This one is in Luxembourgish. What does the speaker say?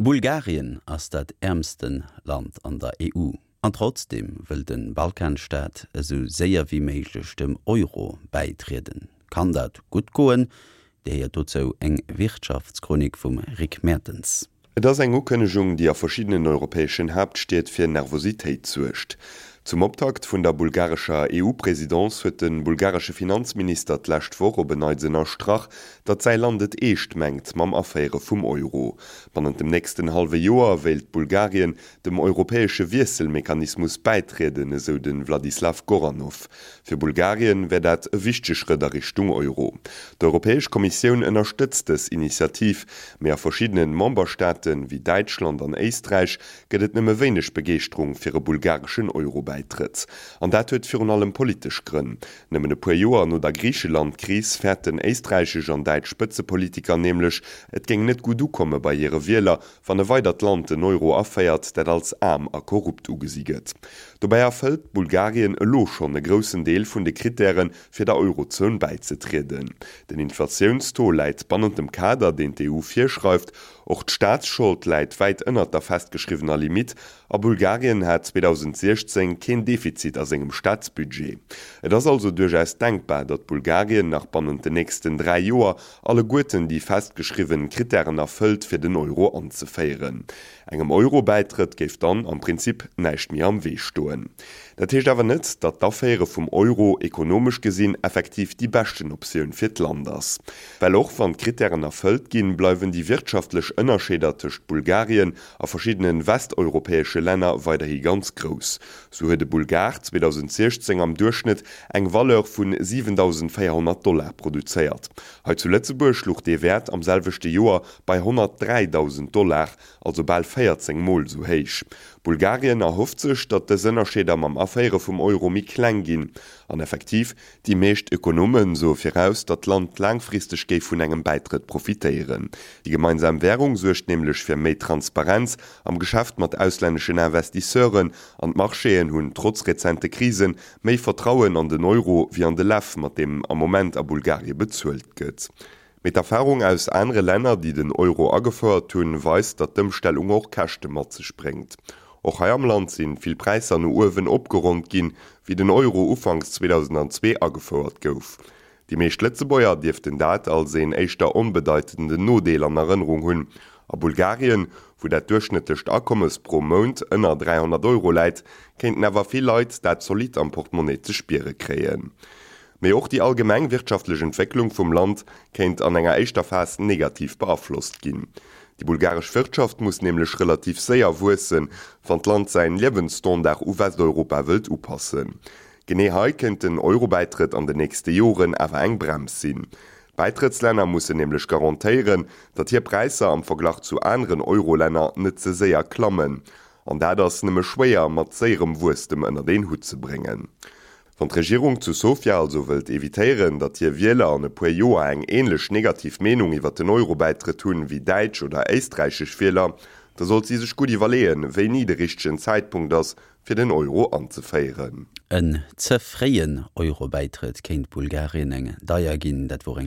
Bulgarien ass dat äermste Land an der EU. An trotzdeem wëll de Balkanstaat esou séier wéi méiglech dem Euro bäitrieden. Kann dat gutt goen? Dir héiert dozou eng Wirtschaftschronik vum Rick Mertens. Et ass eng Ukënnegung, déi a verschiddenen europäeschen Haaptstied fir Nervositéit suergt. Zum Optakt vun der bulgarescher EU-Presidence huet de bulgaresche Finanzminister d'lescht Woch op en Neits ënnerstrach, datt säi Land et eescht mengt mam Aféiere vum Euro. Bannent dem nächsten hallwe Joer wéilt Bulgarien dem europäesche Wiesselmechanismus bäitrieden, esou de Vladislav Goranov. Fir Bulgarien wär dat e wichtege Schrëtt a Richtung Euro. D'Europäesch Kommissioun ënnerstëtzt dës Initiativ, mee a verschiddenen Memberstaaten, wéi Däitschland an Éisträich, gëtt et nëmme wéineg Begeeschterung fir e bulgareschen Euro-Bäitrëtt. An dat huet virun allem politesch Grënn. Nëmmen e puer Joer no der Griicheland-Kris fäerten éisträichesch an däitsch Spëtzepolitiker nämlech, et géing net gutt ukomme bei hire Wieler, wann e weidert Land den Euro aféiert, dat als aarm a korrupt ugesi gëtt. Dobäi erfëllt Bulgarien elo schonn e groussen Deel vun de Krittären, fir der Eurozon bäizetrieden. Den Inflatiounstaux läit bannent dem Kader, deen d'EU virschreift. Och d'Staatsschold läit wäit ënnert der festgeschriwwener Limitt a Bulgarien hat 2016 keen Defizit a sengem Staatsbudget. Et ass also duerchaus denkbar, datt Bulgarien nach bannent den nächsten 3 Joer alleguerten déi festgeschriwwen Krittären erfëllt, fir den Euro anzeféieren. Engem Euro-Bäitrëtt géif dann am Prinzip näischt méi am Wee stoen. Dat heescht awer net, datt d'Aféiere vum Euro ekonomesch gesinn effektiv déi beschten Optioun fir d'Land ass. Well och wann d'Krittären erfëllt ginn, bleiwen déi wirtschaftlech Ënnerscheeder tëscht Bulgarien a verschiddene westeuropäesche Länner weiderhi ganz grouss. Sou huet e Bulgar 2016 am Duerchschnëtt eng Valeur vu 7.400 Dollar produzéiert. Hei zu Lëtzebuerg luch dee Wäert am selwechte Joer bei 103.000 Dollar, also bal 14 Mol sou héich. Bulgarien erhofft sech, datt dës Ënnerscheeder mam Aféiere vum Euro méi kleng ginn. An effektiv, déi meescht Ökonome soe viraus, datt d'Land laangfristeg géif vun engem Bäitrëtt profitéieren. Déi gemeinsam Wärung suergt nämlech fir méi Transparenz am Geschäft mat auslänneschen Investisseuren an d'Marchéen hunn trotz rezente Krisen méi Vertrauen an den Euro wéi an de Lew, mat deem am Moment a Bulgarie bezuelt gëtt. Mee d'Erfarung aus anere Länner, déi den Euro agefouert hunn, weist, datt d'Ëmstellung och Käschte mat sech bréngt. Och hei am Land sinn vill Präisser no uewen opgeronnt ginn, wéi den Euro ufanks 2002 agefouert gouf. Déi meescht Lëtzebuerger dierften dat als een éischter onbedeitenden Nodeel an Erënnerung hunn. A Bulgarien, wou dat duerchschnëttlecht Akommes pro Mount ënner 300 Euro läit, kéinten awer vill Leit dat zolidd am Portemonnaie ze spiere kréien. Mee och déi allgemeng wirtschaftlech Entwécklung vum Land kéint an enger éischter Phas negativ beaflosst ginn. Déi bulgaresch Wirtschaft muss nämlech relativ séier wuessen, wann d'Land säin Liewensstandard u Westeuropa wëllt upassen. Genee hei kéint den Eurobäitrëtt an den nächste Joren awer eng Brems sinn. D'Bäitrëttslänner mussen nämlech garantéieren, datt hir Präisser am Verglach zu aneren Eurolänner net ze séier klammen. An dat ass nëmme schwéier mat séierem Wuesstem ënnert een Hutt ze bréngen. Wann d'Regierung zu Sofia also wëllt evitéieren, datt hir Wieler an e puer Joer eng änlech negativ Meenung iwwer den Eurobäitrëtt hunn wéi däitsch oder éisträichesch Wieler, da sollt si sech gutt iwwerleeën, wéini de richtegen Zäitpunkt ass, fir den Euro anzeféieren. En ze fréien Euro-Bäitrëtt kéint Bulgarien eng deier ginn. Dat wor eng.